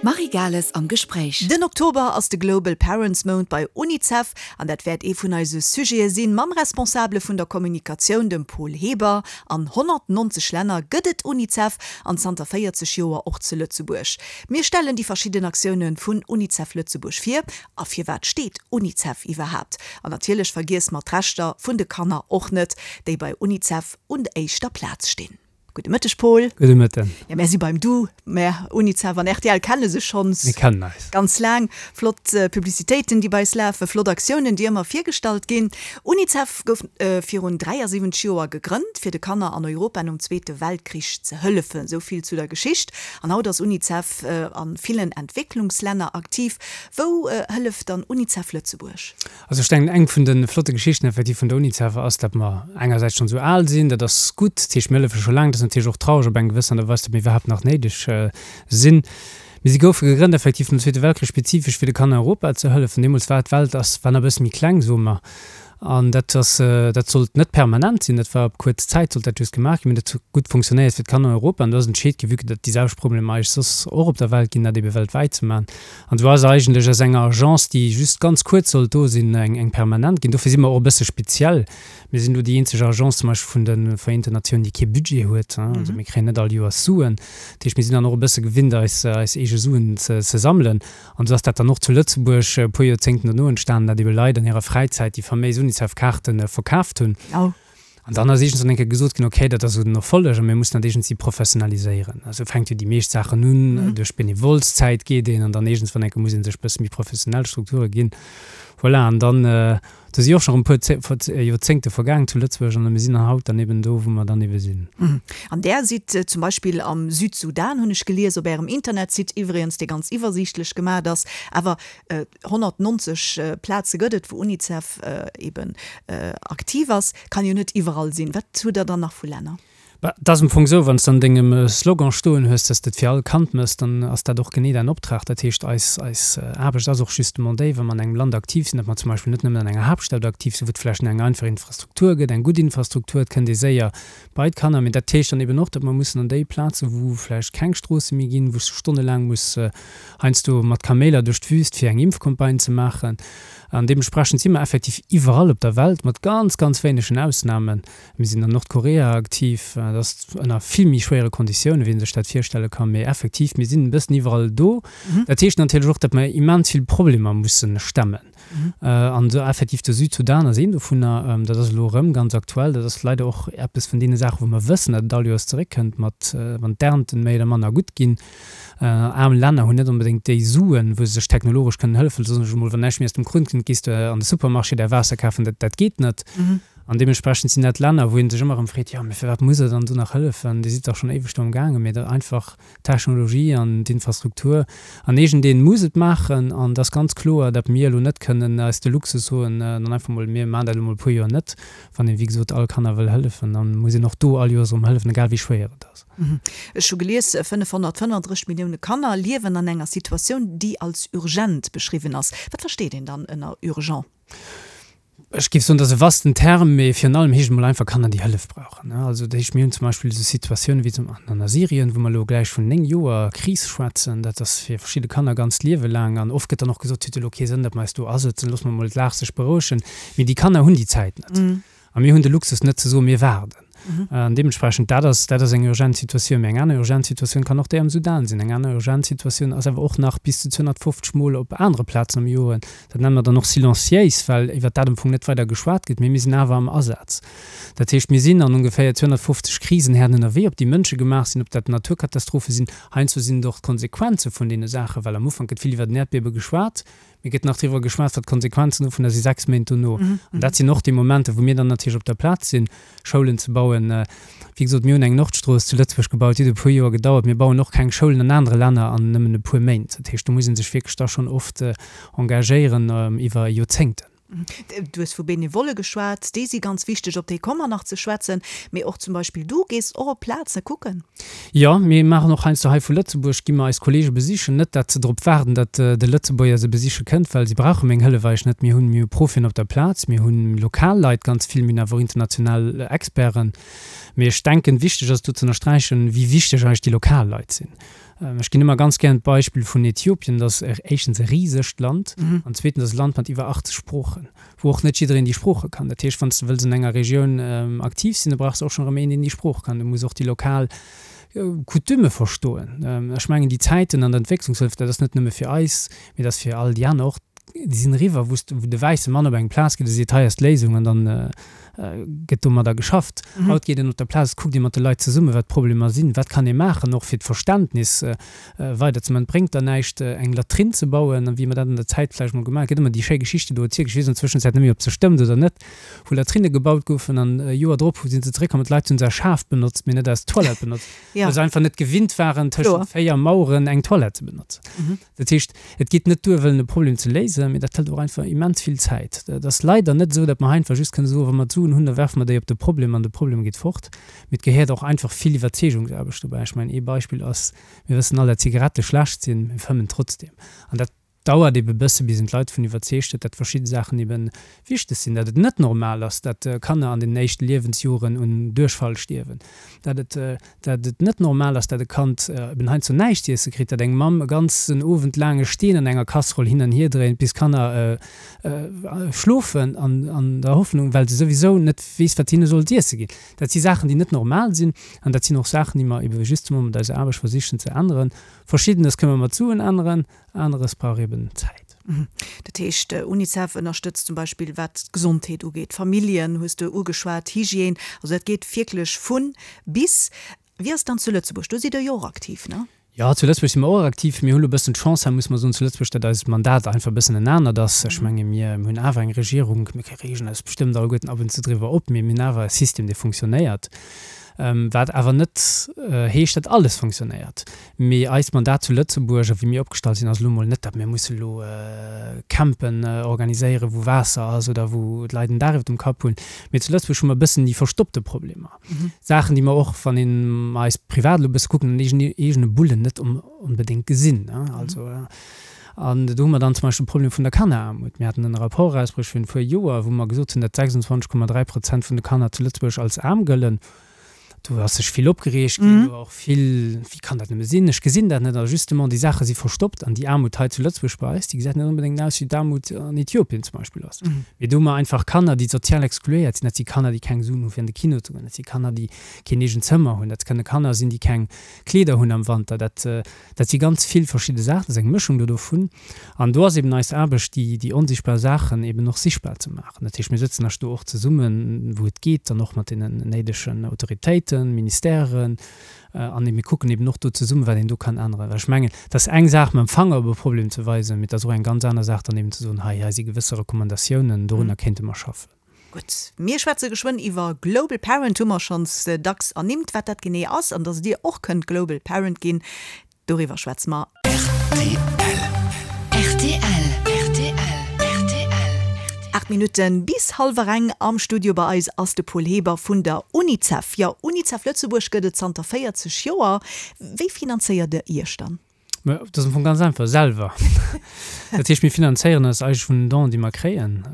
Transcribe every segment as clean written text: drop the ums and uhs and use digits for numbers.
D'Marie Gales am Gespréich. Den Oktober ass de Global Parents Mount bei UNICEF an dat wäert ee vun eise Sujete sinn mam Responsabele vun der Kommunikatioun, dem Paul Heber. An 190 Länner gëtt et UNICEF an zanter 40 Joer och zu Lëtzebuerg. Mir stellen déi verschidden Aktioune vun UNICEF Lëtzebuerg vir a firwat steet UNICEF iwwerhaapt? An natierlech vergiesse mer d'Rechter vun de Kanner och net, déi bei UNICEF un éischter Plaz stinn. Gudde Mëtteg, Paul. Gudde Mëtten. Jo, mär si beim Du. Mär, Unicef an rtl, kenne sech schonns. Mir kennen eis. Ganz laang. Flott Publicitéiten, déi bei eis lafen, flott Aktiounen, déi ëmmer virgestallt ginn. Unicef gouf virun 73 Joer gegrënnt, fir de Kanner an Europa nom Zweete Weltkrich ze hëllefen. Esou vill zu der Geschicht. An haut ass Unicef a villen Entwécklungslänner aktiv. Wou hëlleft dann Unicef Lëtzebuerg? Also ech denken, eng vun de flotte Geschichten effektiv vun der Unicef ass, datt mer engersäits schonn esou al sinn, dat ass gutt, dat heescht mir hëllefe scho laang, dat ass natierlech och traureg op eng gewëss Aart a Weis, datt mir iwwerhaapt nach néideg sinn. Mee si goufe gegrënnt effektiv nom Zweete Weltkrich spezifesch fir de Kanner Europa ze hëllefen. Deemools war d'Welt ass war nach e bësse méi kleng, soe mer, an dat ass dat sollt net permanent sinn, dat war op kuerz Zäit sollt dat just gemaach ginn, mee dat huet gutt funktionéiert fir d'Kanner Europa an do ass entscheet ginn, vue que datt déi selwecht Problemer eigentlech soss och op der Welt ginn, dat ebe weltwäit ze maachen. An esou ass eigentlech aus enger Agence, déi just ganz kuerz sollt do sinn, eng permanent ginn. Dofir si mer och e bësse speziell. Mir sinn do déi eenzeg Agence zum Beispill vun de Vereenten Natiounen, déi kee Budget huet. Also mir kréien net all Joers Suen. Dat heescht, mir sinn dann och e bësse gewinnt, eis eis eege Suen ze sammelen. An esou ass dat dann och zu Lëtzebuerg e puer Joerzéngten dono entstanen, datt ebe Leit an hirer Fräizäit déi faméis Unicef-Kaarte verkaaft hunn. An dann ass iergendswann eng Kéier gesot ginn, okay, dat ass esou den Erfolleg a mir mussen dat iergendwéi professionaliséieren. Esou fänkt jo déi meescht Saachen un, duerch Benevolszäit geet een an dann iergendswann eng Kéier muss ee sech e bësse méi professionell Strukture ginn. Voilà, an dann, do si och scho rëm e puer Joerzéngte vergaangen zu Lëtzebuerg an mir sinn dann haut dann eben do, wou mer dann ebe sinn. An Där sidd zum Beispill am Südsudan, hunn ech gelies, op Ärem Internetsite iwwregens, dee ganz iwwersiichtlech gemaacht ass. Awer 190 Plaze gëtt et, wou Unicef eben aktiv ass. Kann jo net iwwerall sinn. Wat hutt Der dann nach vu Länner? Bah, et ass am Fong esou, wann s de an dengem Slogan stoen hues, dass de et fir all Kand mëss, dann ass dat och genee däin Optrag. Dat heescht, eis, eis Aarbecht ass och justement déi, wa mer an engem Land aktiv sinn, datt mer zum Beispill net nëmmen an enger Haaptstad aktiv sinn, wou et vläicht eng einfach Infrastruktur gëtt, eng gutt Infrastruktur, et kënnt ee séier bei d'Kanner. Mee dat heescht dann eben och, datt mer mussen an déi Plazen, wou vläicht keng Stroosse méi ginn, wou s du stonnelaang muss heiansdo mat Kaméiler duerch d'Wüst, fir eng Impfcampagne ze maachen. An deementsprechend si mer effektiv iwwerall op der Welt, mat ganz, ganz wéinegen Ausnamen. Mir sinn an Nordkorea aktiv, dat ass ënner vill méi schwéiere Konditiounen, wéi ee sech dat virstelle kann. Mee effektiv, mir sinn e bëssen iwwerall do. Dat heescht natierlech och, datt mer immens vill Problemer musse stemmen. An do effektiv de Südsudan ass een dovunner. Dat ass elo erëm ganz aktuell. Dat ass leider och eppes vun deene Saachen, wou mer wëssen, datt et all Joers zeréckkënnt, mat wann d'Ernten méi oder manner gutt ginn. Aarm Länner hunn net onbedéngt déi Suen, wou se sech technologesch kënnen hëllefen. Soen ech emol, wann näischt méi aus dem Krunn kënnt, gees de an de Supermarché däi Waasser kafen. Dat, dat geet net. An deementsprechend sinn dat Länner, wou ee sech ëmmer erëm freet, jo, mee firwat muss Der dann do nach hëllefen? Dir sidd dach schonn éiweg do am gaangen. Mee dat einfach d'Technologie an d'Infrastruktur an iergendeen muss et maachen. An et ass ganz kloer, datt mir elo net kënnen eis de Luxus soen, dann einfach mol, mir maachen dat elo mol e puer Joer net. Wann een, wéi gesot, all Kanner wëll hëllefen, da muss een och do all Joers erëm hëllefen, egal wéi schwéier et ass. Ech hu gelies, 535 Millioune Kanner liewen an enger Situatioun, déi als urgent beschriwwen ass. Wat versteet een dann ënner urgent? Ech géif soen, dat ass e vasten Term, mee virun allem heescht et mol einfach Kanner, déi Hëllef brauchen. Also dat heescht, mir hunn zum Beispill esou Situatiounen wéi zum an a Syrien, wou mer elo gläich vun 9 Joer Kris schwätzen. Dat ass fir verschidde Kanner ganzt Liewe laang. An oft gëtt dann och gesot, et huet elo kee Sënn, datt mer eis do asëtzen, loosse mer mol d'Lag sech berouegen. Mee déi Kanner hunn déi Zäit net. A mir hunn de Luxus net ze soen, mir waarden. An deementsprechend, dat ass, dat ass eng urgent Situatioun. Mee eng aner urgent Situatioun kann och déi am Sudan sinn. Eng aner urgent Situatioun ass awer och nach bis zu 250 Mol op anere Plazen am Joer. Dat nenne mer dann och silenciéis, well iwwert dat am Fong net weider geschwat gëtt. Mee mir sinn awer am Asaz. Dat heescht, mir sinn an ongeféier 250 Krisenherden ënnerwee, ob déi mënschegemaach sinn, ob dat Naturkatastrophe sinn. Heiansdo sinn et och d'Konsequenze vun deene Saachen, well am Ufank gëtt vill iwwert en Äerdbiewe geschwat. Mee gëtt nach driwwer geschwat, wat d'Konsequenzen dovunner si 6 Méint dono. An dat sinn och déi Momenter, wou mir dann natierlech op der Plaz sinn, Schoulen ze bauen. Wéi gesot, mir hunn eng Nordstrooss zu Lëtzebuerg gebaut, déi huet e puer Joer gedauert. Mir bauen och keng Schoulen an anere Länner an nëmmen e puer Méint. Dat heescht, do muss ee sech wierklech da schonn oft engagéieren iwwer Joerzéngten. Du hues vu Benevolle geschwat, déi si ganz wichteg, op déi komme mer nach ze schwätzen. Mee och zum Beispill du gees och op Plaze kucken. Jo, mir maachen och heiansdo hei vu Lëtzebuerg, gi mer eis Kollege besichen. Net, dat se drop waarden, datt de Lëtzebuerger se besiche kënnt, well si brauche meng Hëllef eigentlech net. Mir hunn, mir hu Profien op der Plaz, mir hu lokal Leit ganz vill, mir hunn awer och international Experten. Mee ech denken, wichteg ass do ze ënnersträichen, wéi wichteg eigentlech déi lokal Leit sinn. Ech ginn ëmmer ganz gären d'Beispill vun Äthiopien, dat ass éischtens e risegt Land an zweetens ass e Land mat iwwer 80 Sproochen. wou och net jiddereen déi Sprooche kann. Dat heescht, wann s de wëlls an enger Regioun aktiv sinn, da brauchs de och schonn erëm een, deen déi Sprooch kann. Du muss och déi lokal Coutume verstoen. Ech mengen, déi Zäiten an der Entwécklungshëllef, dat ass net nëmme fir eis, mee dat ass fir all déi aner och, déi sinn eriwwer, wou s de, wou de wäisse Mann op eng Plaz geet a seet, hei ass d'Léisung an dann gëtt domadder geschafft. Haut geet een op der Plaz, et kuckt ee mat de Leit zesummen, wat d'Problemer sinn, wat kann ee maachen, och fir d'Verständnis weider ze man. Et bréngt der näischt eng Latrinn ze bauen, wéi mer dat an der Zäit vläicht mol gemaach. Et gëtt ëmmer déi schéi Geschichte do erzielt, ech weess an der Zwëschenzäit net méi ob se stëmmt oder net, wou Latrinne gebaut goufen an e Joer drop si se zeréckkomm an d'Leit hunn se als Schaf benotzt, mee net als Toilette benotzt, well se einfach net gewinnt waren tëschent 4 Maueren eng Toilette ze benotzen. Dat heescht, et geet net duer wëllen e Problem ze léisen, mee dat hëlt och einfach immens vill Zäit. Et ass leider net esou, datt mer einfach just kënne soen, wa mer d'Suen hunn, da werfe mer déi op de Problem an de Problem geet fort. Mee et gehéiert och einfach vill Iwwerzeegungsaarbecht dobäi. Ech mengen, ee Beispill ass, mir wëssen all, dat Zigarette schlecht sinn, mir fëmmen trotzdeem. An dat dauert ebe bësse, bis een d'Leit dovun iwwerzeegt huet, dat verschidde Saachen ebe wichteg sinn, dat et net normal ass, dat Kanner an den éischte Liewensjoren un Duerchfall stierwen, dat et, dat et net normal ass, dat e Kand eben heiansdo näischt z'iesse kritt, dat eng Mamm e ganzen Owend laang e Steen an enger Casserole hin an hier dréint, bis d'Kanner schlofen, an an der Hoffnung, well se souwisou net weess, wat hinne soll z'iesse ginn. Dat si Saachen, déi net normal sinn an dat sinn och Saachen, déi mer ebe justement mat eiser Aarbecht versichen ze änneren. Verschiddenes kënne mer mat Suen änneren, aneres brauch eben Zäit. Dat heescht, Unicef ënnerstëtzt zum Beispill wat d'Gesondheet ugeet, d'Familljen hues de ugeschwat, Hygiène, also dat geet wierklech vu bis. Wéi ass et dann zu Lëtzebuerg? Do sidd Der jo och aktiv, ne? Jo, zu Lëtzebuerg si mer och aktiv. Mir hu lo e bëssen d'Chance, hei muss mer soen, zu Lëtzebuerg, datt eist Mandat einfach e bëssen en anert ass. Ech menge mir hunn awer eng Regierung, mir reegen eis bestëmmt alleguerten ab und zu driwwer op, mee mir hunn awer e System, dee funktionéiert, wat awer net heescht, datt alles funktionéiert. Mee eist Mandat zu Lëtzebuerg a wéi mir opgestallt sinn, ass elo mol net, datt mir musse lo Campen organiséieren, wou Waasser ass oder wou d'Leit en Daach iwwer dem Kapp hunn. Mee zu Lëtzebuerg hu mer e bëssen déi verstoppte Problemer. Saachen, déi mer och, wann een eis privat elo e bësse kucken, an eegene Bullen net onbedéngt gesinn. Also, an do hu mer dann zum Beispill de Problem vun der Kanneraarmut. Mir haten en Rapport erausbruecht virun e puer Joer, wou mer gesot hunn, datt 26,3 Prozent vun de Kanner zu Lëtzebuerg als aarm gëllen. Do ass sech vill opgereegt ginn, do war och vill, wéi kann dat nëmme sinn, ech gesinn dat net. A justement, déi Saache si verstoppt an déi Aarmut hei zu Lëtzebuerg bei eis, déi gesäit net onbedéngt aus wéi d'Aarmut an Äthiopien zum Beispill ass. Mee do hu mer einfach Kanner, déi sozial exkluéiert sinn. Dat si Kanner, déi keng Suen hu fir an de Kino ze goen. Dat si Kanner, déi keen eegent Zëmmer hunn. Dat kënne Kanner sinn, déi keng Kleeder hunn am Wanter. Dat, dat si ganz vill verschidde Saachen. Dat ass eng Mëschung do dovun. An do ass eben eis Aarbecht, déi, déi onsichtbar Saachen eben och sichtbar ze maachen. Dat heescht, mir sëtzen esch do och zesummen, wou et geet, dann och mat deenen néidegen Autoritéiten, Ministèren, An mir kucken eben och do zesummen, wat een do kann änneren. Well ech mengen, et ass eng Saach, mam Fanger op e Problem ze weisen, mee et ass och eng ganz aner Saach, dann eben ze soen, hei, hei si gewësse Recommandatiounen, dorunner kéinte mer schaffen. Gutt, mir schwätze geschwënn iwwer Global Parent, hu mer schonns dacks ernimmt. Wat dat genee ass an dass Dir och kënnt Global Parent ginn, doriwwer schwätze mer. 8 Minutten bis hallwer eng. Am Studio bei eis ass de Paul Heber vun der Unicef. Jo, Unicef Lëtzebuerg gëtt et zanter 40 Joer. Wéi finanzéiert der Iech dann? Mä dat ass am Fong ganz einfach, selwer. Dat heescht, mir finanzéieren eis eigentlech vun den Donen, déi mer kréien,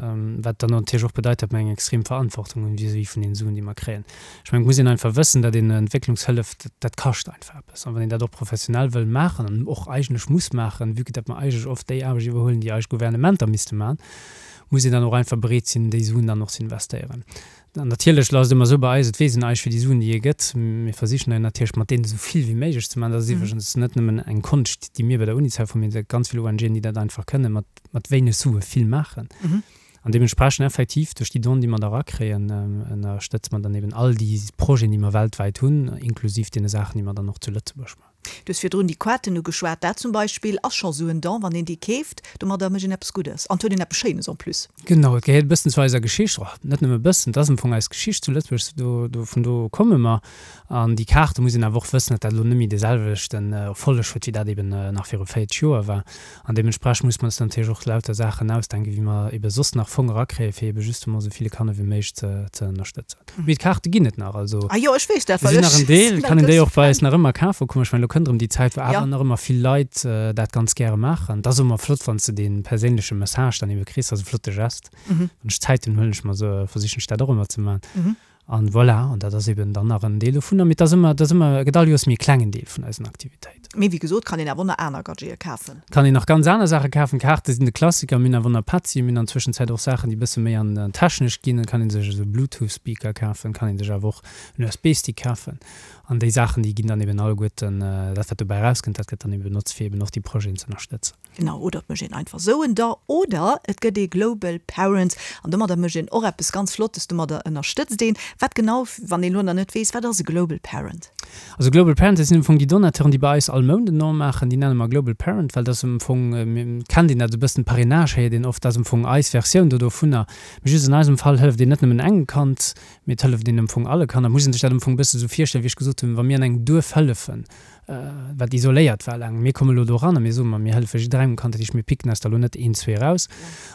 wat dann natierlech och bedeit, datt mer eng extrem Verantwortung hunn vis-à-vis vun den Suen, déi mer kréien. Ech mengen, et muss een einfach wëssen, datt een Entwécklungshëllef, dat kascht einfach eppes. An wann een dat och professionell wëll maachen an och eigentlech muss maachen, vue que datt mer eigentlech oft déi Aarbecht iwwerhuelen, déi eis Gouvernementer misste maachen, muss een dann och einfach bereet sinn, déi Suen dann och ze investéieren. An natierlech ass et ëmmer esou bei eis, et weess een eigentlech, wéi déi Suen, déi ee gëtt. Mir versichen dann natierlech mat deenen esou vill wéi méiglech ze maachen. Dat ass iwwregens net nëmmen eng Konscht, déi mir bei der Unicef hunn, mee et gëtt ganz vill ONGen, déi dat einfach kënnen, mat, mat wéineg Sue vill maachen. An deementsprechend effektiv duerch déi Donen, déi mer da erakréien, ënnerstëtze mer dann eben all déi Projeten, déi mer weltwäit hunn, inklusiv deene Saachen, déi mer dann och zu Lëtzebuerg maachen. Du hues virdrun déi Kaarten ugeschwat. Dat zum Beispill ass scho sou en Don, wann een déi keeft, domadder mécht een eppes Guddes an et huet een eppes Schéines en plus. Genau, et gehéiert e bëssen zu eiser Geschicht, oh, net nëmme e bëssen, et ass am Fong eis Geschicht zu Lëtzebuerg, do, do, vun do komme mer. An déi Kaarte muss een awer och wëssen, datt dat elo net méi dee selwechten Erfolleg huet, wéi dat eben nach viru 40 Joer war. An deementsprechend muss mer eis natierlech och lauter Saachen ausdenken, wéi mer ebe soss nach Fong erakréien, fir ebe justement esou ville Kanner wéi méiglech ze, ze ënnerstëtzen. Mee d'Kaarte ginn et nach, also Ah jo, ech weess dat, se well sinn nach ech en Deel, sinn kann e een déi grousse och bei Fan. eis nach ëmmer kafe kommen. Ech mengen, elo kënnt erëm déi Zäit, wou Ja. awer nach ëmmer vill Leit dat ganz gäre maachen. Et ass ëmmer flott, wann s de dee perséinleche Message dann ebe kriss, ass e flotte Gest. Wann ech Zäit hunn, huelen ech mer se, versichen ech dat och ëmmer ze maachen. An voilà, an dat ass eben dann nach en Deel dovunner. Mee et ass ëmmer, et ass ëmmer, et gëtt all Joers méi e klengen Deel vun eisen Aktivitéiten. Mee wéi gesot, kann een awer och nach aner Gadgete kafen. Kann een nach ganz aner Saache kafen. Kaarte sinn de Klassiker. Mir hunn awer och nach Petzi, mir hunn an Zwëschenzäit och Saachen, déi e bësse méi an technesch ginn. Et kann ee sech esou Bluetooth-Speaker kafen, kann ee sech awer och en USB-Stick kafen. An déi Saachen, déi ginn dann eben alleguerten, dat wat dobäi erauskënnt, dat gëtt dann eben benotzt, fir eben och déi Projeten ze ënnerstëtzen. Genau, oder et mécht een einfach esou en Don, oder et gëtt ee Global Parent an domadder mécht een och eppes ganz Flottes, domadder ënnerstëtzt een. Wat genau, wann een elo nach net weess, wat ass e Global Parent? Also Global Parent, dat sinn am Fong déi Donateuren, déi bei eis all Mount en Don maachen, déi nenne mer Global Parent, well dat ass am Fong, kennt een dat esou e bëssen, Parrainage héiert een oft, dat ass am Fong eis Versioun do dovunner. Mee just an eisem Fall hëlleft een net nëmmen engem Kand, mee et hëlleft een am Fong alle Kanner. Et muss een sech dat am Fong e bësse esou virstellen, wéi ech gesot hunn, wa mir an engem Duerf hëllefen, wat isoléiert war laang. Mir komme lo do eran a mir soen, ma mir hëllefe jidderengem Kand, dat heescht mir picken eis der lo net een, zwee eraus.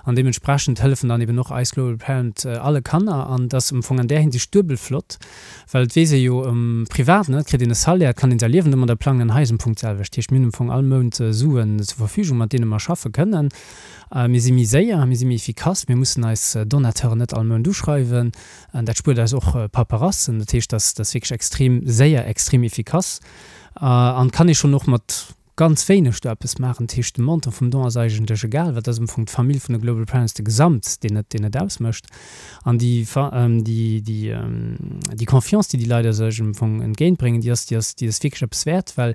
An deementsprechend hëllefen dann eben och eis Global Parent alle Kanner. An et ass am Fong an där Hinsicht duebel flott, well et weess ee jo um Privaten, et kritt een e Salaire, et kann een säi Liewen domadder plangen an hei ass am Fong d'selwecht. Dat heescht mir hunn am Fong all Mount Suen zur Verfügung, mat deene mer schaffe kënnen. Mir si méi séier, mir si méi efficace, mir mussen eis Donateuren net all Mount uschreiwen. An dat spuert eis och Paperassen. Dat heescht, dat ass wierklech extrem séier, extrem efficace an kann ee schonn och mat ganz wéineg do eppes maachen. Dat heescht, de Montant vum Don ass eigentlech egal, well dat ass am Fong d'Famill vun de Global Parents, de Gesamt, deen et, deen et ausmécht. An déi, déi, déi, déi Confiance, déi déi Leit eis am Fong entgéintbréngen, déi ass, déi ass, déi ass wierklech eppes wäert, well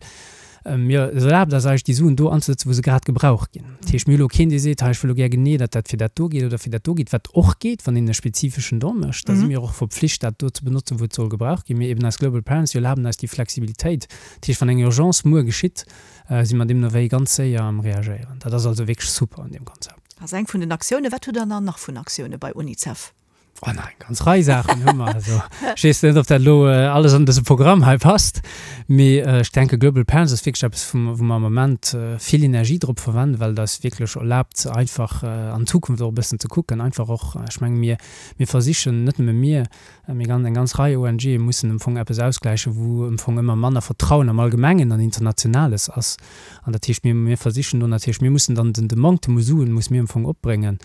Mir et erlaabt eis eigentlech déi Suen do anzesetzen, wou se grad gebraucht ginn. Dat heescht, mir hu lo keen, dee seet, hei ech wëll lo gär genee, datt dat fir dat do geet oder fir dat do geet, wat och geet, wann een e spezifeschen Don mécht. Da si mir och verpflicht, dat do ze benotzen, wou et soll gebraucht ginn. Mee eben eis Global Parents, déi erlaben eis déi Flexibilitéit. Dat heescht, wann eng Urgence muer geschitt, si mer deemno wéi ganz séier am Reagéieren. Dat ass also wierklech super an deem Konzept. Ass eng vun den Aktiounen. Wat hutt Der dann nach vun Aktioune bei Unicef? Oh, nach eng ganz Rei Saachen hu mer. Also, ech weess net, ob dat elo alles an dëse Programm hei passt, mee ech denke Global Parents ass wierklech eppes, wou mer am Moment vill Energie drop verwenden, well et eis wierklech erlaabt, einfach an d'Zukunft och e bëssen ze kucken. Einfach och, ech menge mir, mir versichen, net nëmme mir, mee ganz, eng ganz Rei ONGe mussen am Fong eppes ausgläichen, wou am Fong ëmmer manner Vertrauen am Allgemengen an Internationales ass. An dat heescht, mir, mir versichen do natierlech, mir mussen dann den, de Manktem u Suen musse mir am Fong opbréngen.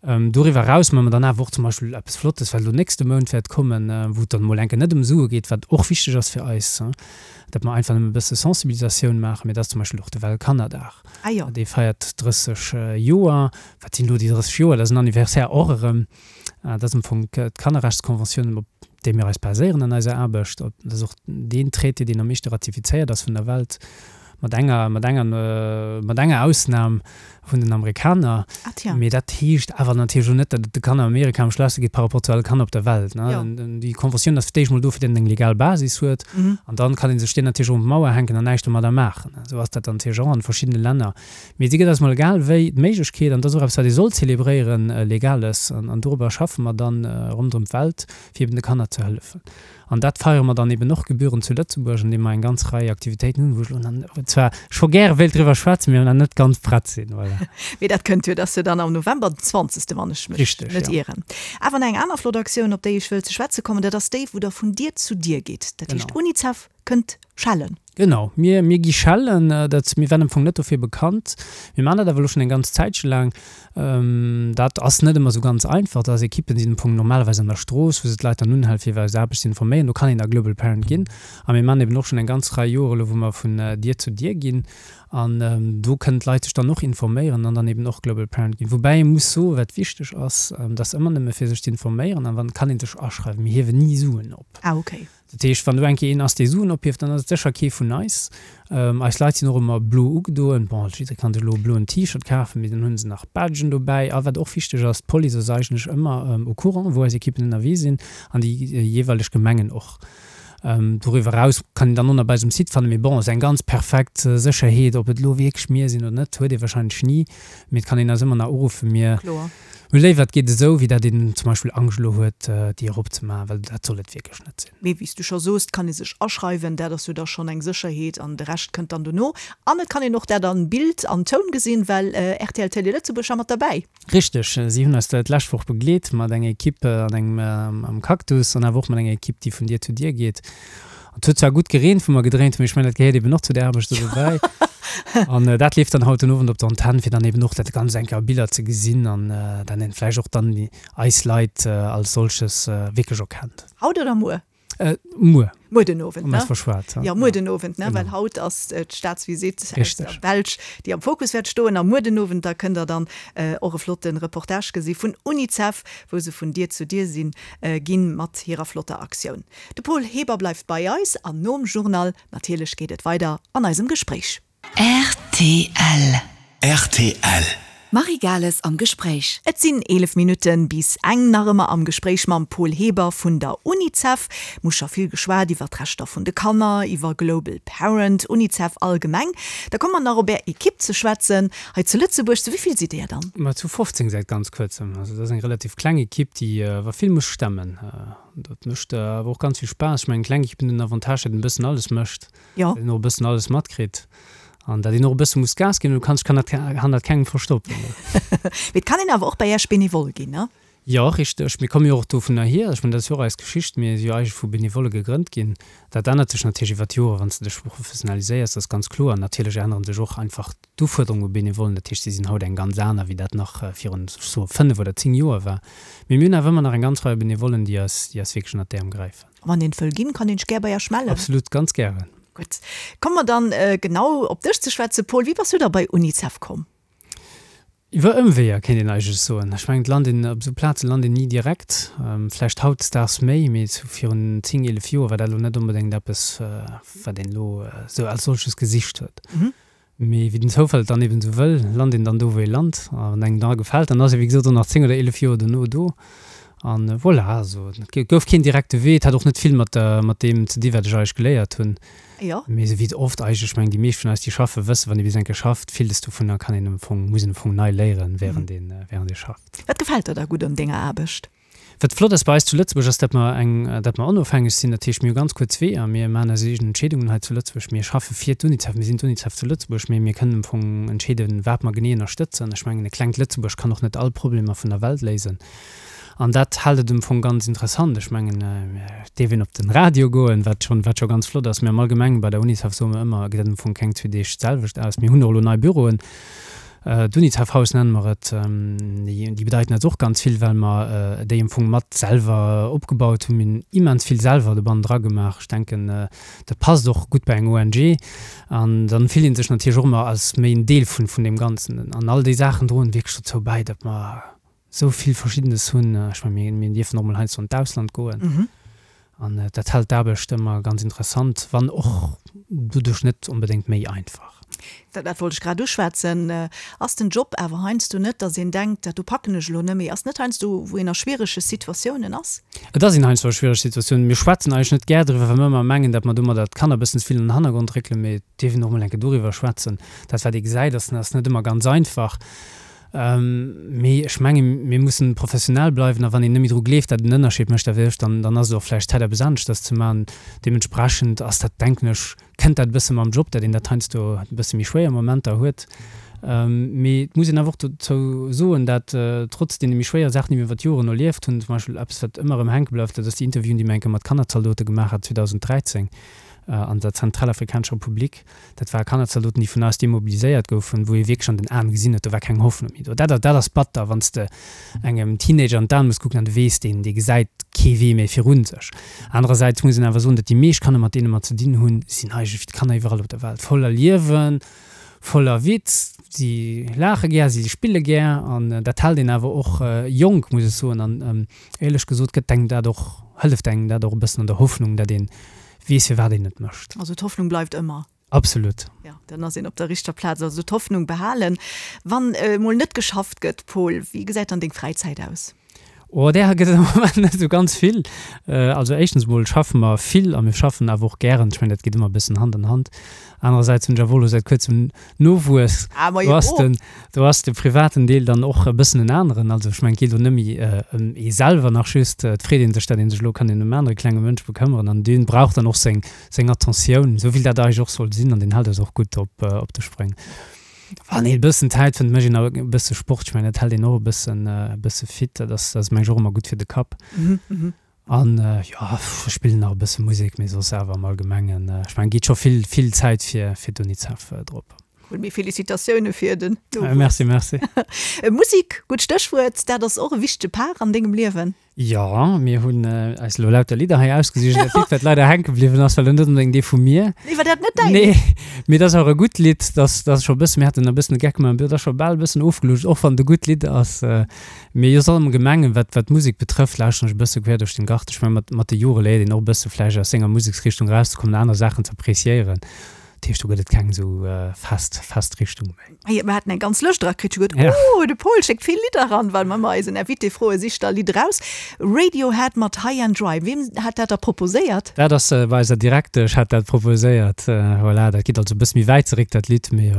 Doriwwer eraus maache mer dann awer och zum Beispill eppes Flottes, wat elo nächste Mount wäert kommen, wou et dann emol eng Kéier net ëm Sue geet, wat och wichteg ass fir eis, datt mer einfach nëmme e bësse Sensibilisatioun maachen, mee dat ass zum Beispill och de Weltkannerdag. Dee feiert 30 Joer. Wat sinn elo déi 30 Joer? Dat ass en Anniversaire och erëm. Dat ass am Fong d'Kannerrechtskonventioun, op déi mir eis baséieren an eiser Aarbecht. Dat ass och deen Traité, deen am meeschte ratifizéiert ass vun der Welt, mat enger, mat enger, mat enger Ausnam vun den Amerikaner. Ah tja. Mee dat heescht awer natierlech och net, datt et de Kanner an Amerika am schlechste geet par rapport zu alle Kanner op der Welt, ne. Jo. Déi Konventioun ass fir d'éischt mol do, fir datt een eng legal Basis huet. An dann kann ee sech déi natierlech och un d'Mauer hänken an näischt domadder maachen. Esou ass dat dann natierlech och an verschiddene Länner. Mee si gëtt eis mol egal wéi d'Méiglechkeet, an dat ass och eppes, wat ee soll zelebréieren, Legales, an dorobber schaffe mer dann ronderëm d'Welt, fir eben de Kanner ze hëllefen. An dat feiere mer dann eben och gebührend zu Lëtzebuerg, andeem mer eng ganz Rei Aktivitéiten hunn, wou ech elo nach zwar scho gäre wéilt driwwer schwätzen, mee nach net ganz prett sinn. Voilà. Mee dat kënnt jo, dat ass jo dann am November, den zwanzegste, wann ech mech Richtig, net ja. ieren. Awer nach eng aner flott Aktioun, op déi ech wëll ze schwätze kommen, dat ass déi, wou Der vun Dier zu Dier gitt. Dat heescht, Genau. Unicef kënnt schellen. Genau, mir, mir gi schellen. Dat, mir waren am Fong net dofir bekannt. Mir maachen dat awer elo schonn eng ganz Zäitche laang. Dat ass net ëmmer esou ganz einfach. Dat ass Ekippen sinn am Fong normalerweis an der Strooss, wou se d'Leit dann unhalen, fir iwwer eis Aarbecht ze informéieren. Do kann een da Global Parent ginn. A mir maachen eben och schonn eng ganz Rei Joer elo, wou mer vun Dier zu Dier ginn. An do kënnen d'Leit sech dann och informéieren an dann eben och Global Parent ginn. Woubäi ee muss soen, wat wichteg ass, dat ass ëmmer nëmme fir sech ze informéieren an dann kann ee sech aschreiwen. Mir hiewen ni Suen op. Ah, okay. Dat heescht, wann do eng Kéier een ass, dee Suen ophieft, dann ass et sécher kee vun eis. Eis Leit sinn och ëmmer blo ugedoen. Bon, jidderee kann sech elo e bloen T-Shirt kafen, mee dann hu se nach Badgen dobäi. A wat och wichteg ass, d'Police ass eigentlech ëmmer au courant, wou eis Ekippen ënnerwee sinn, an déi jeeweileg Gemengen och. Doriwwer eraus kann een dann och nach bei eis um Site fannen. Mee bon, esou eng ganz perfekt Sécherheet, ob et elo wierklech mir sinn oder net, huet ee warscheinlech ni. Mee et kann een eis ëmmer nach uruffen. Mir hu léiwer, et geet esou, wéi dat een zum Beispill Angscht elo huet, déi eropzemaachen, well dat soll et wierklech net sinn. Mee wéi s du scho soos, et kann ee sech aschreiwen, dat ass jo da schonn eng Sécherheet an de Rescht kënnt dann dono. An et kann een och dat an Bild an Toun gesinn, well rtl Télé Lëtzebuerg war mat derbäi. Richteg, si hunn eis d'lescht Woch begleet mat enger Equipe an engem am Cactus an awer och mat enger Equipe, déi vun Dier zu Dier geet. Et huet zwar gutt gereent, wou mer gedréint hunn, mee ech mengen, dat gehéiert eben och zu der Aarbecht do dobäi. An dat leeft dann haut den Owend op der Antenn, fir dann eben och dat Ganzt eng Kéier a Biller ze gesinn an dann een vläicht och dann eis Leit als solches wierklech erkennt. Haut oder muer? Muer. Muer den Owend, ne? Verschwat, ja. Muer den Owend, ne? Well haut ass d'Staatsvisitt aus der Belsch, déi am Fokus wäert stoen. A muer den Owend, da kënnt der dann och e flotte Reportage gesi vun Unicef, wou se vun Dier zu Dier sinn ginn mat hirer flotter Aktioun. De Paul Heber bleift bei eis an nom Journal natierlech geet et weider an eisem Gespréich. Rtl. Rtl. Marie Gales am Gespréich. Et sinn 11 Minutte bis eng. Nach ëmmer am Gespréich mam Paul Heber vun der Unicef. Mir hu scho vill geschwat iwwer d'Rechter vun de Kanner, iwwer Global Parent, Unicef allgemeng. Da komme mer nach op Är Ekipp ze schwätzen hei zu Lëtzebuerg. Zu wéi vill sidd Dir dann? Ma zu 15 säit ganz kuerzem. Also dat ass eng relativ kleng Ekipp, déi awer vill muss stemmen. Dat mécht awer och ganz vill Spaass. Ech mengen, kleng Ekippen hunn den Avantage, datt een e bëssen alles mécht. Jo. Dat een och e bëssen alles matkritt an dat een och e bësse muss Gas ginn. Du kanns, kann dat hannert kengem verstoppen. Mee et kann een awer och bei Iech Benevole ginn, ne? Jo, richteg. Mir komme jo och dovunner hier. Ech mengen, dat ass jo och eis Geschicht. Mir si jo eigentlech vu Benevolle gegrënnt ginn. Dat ännert sech natierlech iwwer d'Joren, wann s de dech professionaliséiers, dat ass ganz kloer. Natierlech ännere sech och einfach d'Ufuerderunge u Benevollen. Dat heescht, si sinn haut eng ganz aner, wéi dat nach virun, ech soe fënnef oder zéng Joer war. Mee mir hunn awer ëmmer nach eng ganz Rei Benevollen, déi eis, déi eis wierklech ënnert d'Äerm gräifen. Wann een wëll ginn, kann een sech gär bei Iech mellen. Absolut, ganz gären. Gutt, komme mer dann genau op dech ze schwätzen, Paul. Wéi bass du da bei Unicef komm? Iwwer Ëmweeër, kéint een eigentlech soen. Ech mengen, et lant een op esou Plaze lant een ni direkt. Vläicht hautdesdaags méi, mee sou virun 10, 11 Joer war dat elo net onbedéngt eppes, wat een elo esou als solches gesicht huet. Mee wéi den Zoufall et dann eben esou wëll, lant een dann do, wou ee lant. A wann engem da gefält, dann ass ee wéi gesot och nach 10 oder 11 Joer dono do. An voilà, also et gouf keen direkte Wee. Et hat och net vill mat der, mat deem ze di wat ech eigentlech geléiert hunn. Jo. Mee esou wéi et oft eigentlech, ech mengen déi meescht vun eis déi schaffen, wëssen, wann ee bis eng Kéier schafft, villes dovunner kann een am Fong, muss een am Fong nei léieren, während een, während ee schafft. Wat gefält der da gutt un denger Aarbecht? Wat flott ass bei eis zu Lëtzebuerg ass, datt mer eng, datt mer onofhängeg sinn. Dat heescht, mir hu ganz kuerz Weeër. Mir maachen eis eegen Entscheedungen hei zu Lëtzebuerg. Mir schaffe fir d'Unicef. Mir sinn d'Unicef zu Lëtzebuerg, mee mir kënnen am Fong entscheeden, wat mer genee ënnerstëtzen. Ech mengen, e klengt Lëtzebuerg kann och net all Problemer vun der Welt léisen. An dat hält et am Fong ganz interessant. Ech mengen, et dierf een op den Radio goen, wat schonn, wat scho ganz flott ass. Mee am Allgemengen bei der Unicef soe mer ëmmer, gesäit am Fong keng zwee Deeg d'selwecht aus. Mir hunn och elo nei Büroen. D'Unicef-Haus nenne mer et. Déi bedeiten eis och ganz vill, well mer déi am Fong mat selwer opgebaut hunn. Mir hunn immens vill selwer dobannen dra gemaach. Ech denken, dat passt och gutt bei eng ONG. An dann fillt ee sech natierlech och ëmmer als méi en Deel vun deem Ganzen. An all déi Saachen droen wierklech dozou bäi, datt mer esou vill Verschiddenes hunn. Ech mengen, mir dierfen och mol heiansdo an d'Ausland goen. An dat hält d'Aarbecht ëmmer ganz interessant, wann och doduerch net onbedéngt méi einfach. Dat wollt ech grad uschwätzen. Ass den Job awer heiansdo net, datt een denkt, dat do packen ech elo net méi? Ass net heiansdo, wou een a schwierege Situatiounen ass? Et ass een heiansdo a schwierege Situatiounen. Mir schwätzen eigentlech net gär driwwer, well mir ëmmer mengen, datt mer domadder d'Kanner e bëssen ze vill an den Hannergrond réckelen. Mee et dierf een och emol eng Kéier doriwwer schwätzen. Dat, wat ee gesäit, ass net ëmmer ganz einfach. Mee ech mengen, mir mussen professionell bleiwen a wann een net méi dru gleeft, datt et en Ënnerscheed mécht, da wéi ech, dann, dann ass et och vläicht Zäit, eppes aneschters ze maachen. Deementsprechend ass dat, denken ech, kënnt dat e bësse mam Job, datt een dat heiansdo e bësse méi schwéier Momenter huet. Mee et muss een awer och dozou soen, dat trotz deene méi schwéiere Saachen, déi mir iwwer d'Joren erlieft hunn, zum Beispill eppes, wat ëmmer erëm hänke bleift, dat ass déi Interviewen, déi mir eng Kéier mat Kannerzaldote gemaach hat 2013 an der Zentralafrikanescher Republik, Dat ware Kannerzaldoten, déi vun eis demobiliséiert goufen, wou ee wierklech an den Aen gesinn huet, do war keng Hoffnung méi do. Dat, dat ass batter, wann s de engem Teenager an d'Aen muss kucken an du weess, deen, dee gesäit kee Wee méi virun sech. Anerersäits muss een awer soen, datt déi meescht Kanner, mat deene mer ze dinn hunn, sinn eigentlech wéi d'Kanner iwwerall op der Welt, voller Liewen, voller Witz, si laache gär, si spille gär an dat hält een awer och jonk, muss ech soen. An éierlech gesot gëtt engem dat och, hëlleft engem dat och e bëssen an der Hoffnung, datt een weess firwat een et mécht. Also d'Hoffnung bleift ëmmer. Absolut. Jo, dann ass een op der richter Plaz. Also d'Hoffnung behalen. Wann emol net geschafft gëtt, Paul, wéi gesäit dann deng Fräizäit aus? Oh, där gëtt et am Moment net esou ganz vill. Also éischtens emol schaffe mer vill a mir schaffen awer och gären. Ech mengen, dat geet ëmmer e bëssen Hand an Hand. Anerersäits hunn ech awer och elo säit kuerzem Nowuess. Ah, ma jo. Do ass den, do ass de privaten Deel dann och e bëssen en aneren. Also ech mengen, et geet elo net méi ëm ee selwer nach just. Et freet ee sech, datt ee sech elo kann ëm en anere klenge Mënsch bekëmmeren an dee brauch dann och seng, seng Attentioun, esou wéi dat eigentlech och soll sinn an deen hält eis och gutt op, op de Spréng. Wann een e bëssen Zäit fënnt, mécht een awer e bësse Sport. Ech mengen, dat hält een och e bëssen, e bësse fit. Dat ass, dat ass mengen ech och ëmmer gutt fir de Kapp. An jo, ech spillen nach e bësse Musek, mee soss awer am Allgemengen, ech mengen, geet scho vill, vill Zäit fir, fir d'Unicef drop. Cool, mee Felicitatioune fir den Nowuess. Merci, merci. Musek, gutt Stéchwuert, dat ass och e wichtege Part an dengem Liewen. Jo, mir hunn eis elo lauter Lidder hei ausgesicht. Dat Lidd, wat leider hänke bliwwen ass, war elo net onbedéngt ee vu mir. Nee, war dat net däin? Nee, mee dat ass awer e gutt Lidd. Dat ass scho e bëssen, mir haten e bëssen de Geck gemaach, dat ass scho bal e bëssen ofgelutscht, och wann et e gutt Lidd ass. Mee jo, soss am Allgemengen, wat, wat d'Musek betrëfft, lauschteren ech e bësse quer duerch den Garten. Ech mengen, mat, mat de Jore léiert een och e bësse vläicht aus senger Museksrichtung erauszekommen, aner Saachen ze appreciéieren. Dat heescht, do gëtt et keng esou fest, fest Richtung méi. Hey, mir haten eng ganz Lëscht erakritt, ech hu geduet, oh, de Paul schéckt vill Lidder eran, well mer ëmmer eisen Invité froe, sich der Lidd eraus. Radiohead mat High and Dry, wien hat dat da proposéiert? Dat ass bei eiser Direktesch hat dat proposéiert. Voilà, dat geet also e bësse méi wäit zeréck, dat Lidd, mee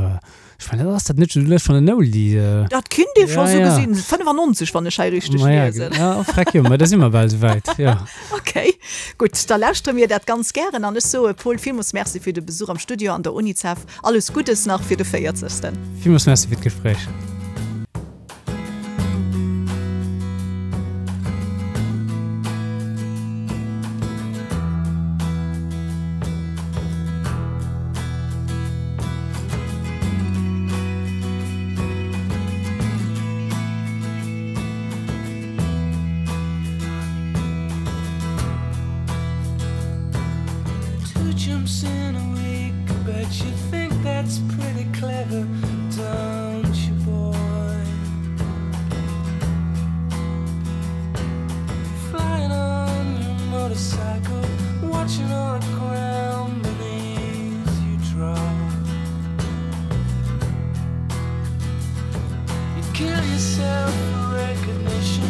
ech mengen, ass dat net souguer schonn en Oldie? Dat kinnt ee scho sou gesinn, 95, wann ech hei richteg liesen. Ma ja, freck jo, ma da si mer bal souwäit, jo. Ok, gutt, da lauschtere mir dat ganz gären an ech soe Paul villmools Merci fir de Besuch am Studio an der Unicef. Alles Guddes nach fir de 40. Villmools Merci fir d'Gespréich. Two jumps in a week, but you think that's pretty clever, don't you, boy? Flying on your motorcycle, watching all the ground beneath you drop. You kill yourself for recognition,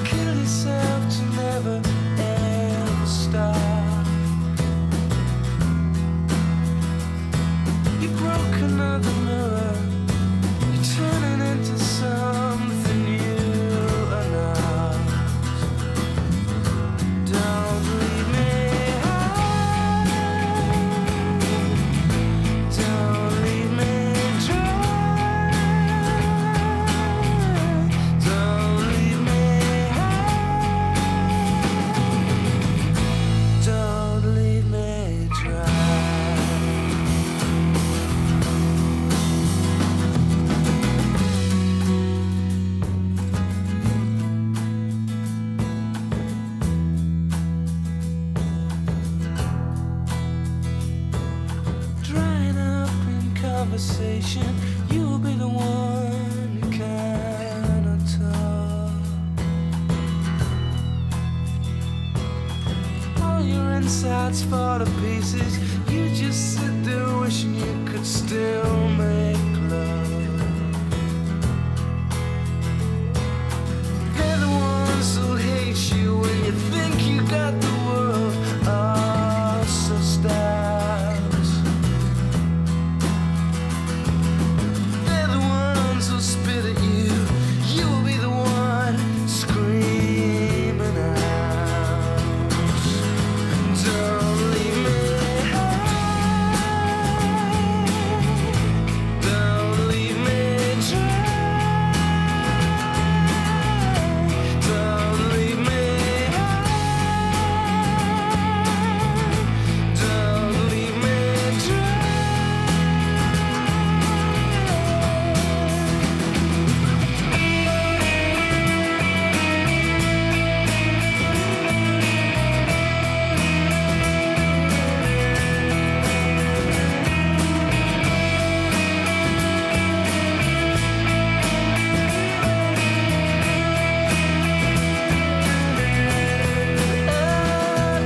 kill yourself to never ever stop. You broke another mirror, you're turning into something you are not. Don't leave me high. Don't leave me dry. Don't leave me high. Don't leave me dry. Drying up in conversation, you'll be the one who cannot talk. All your insides fall to pieces. You just sit there wishing you could still make love. They're the ones who hate you when you think you got the world all sussed out. They're the ones who spit at you. You will be the one screaming out. Don't leave me high. Don't leave me dry. Don't leave me high. Don't leave me dry.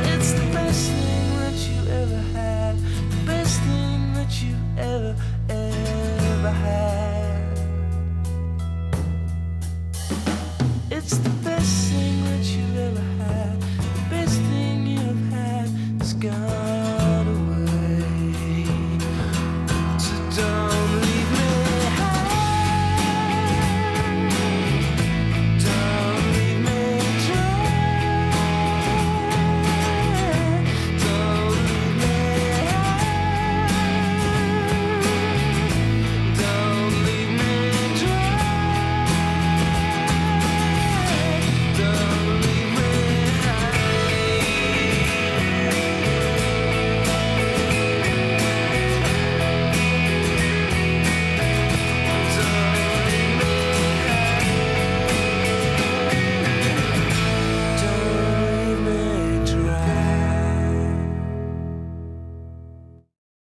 It's the best thing that you ever had. The best thing that you ever, ever had.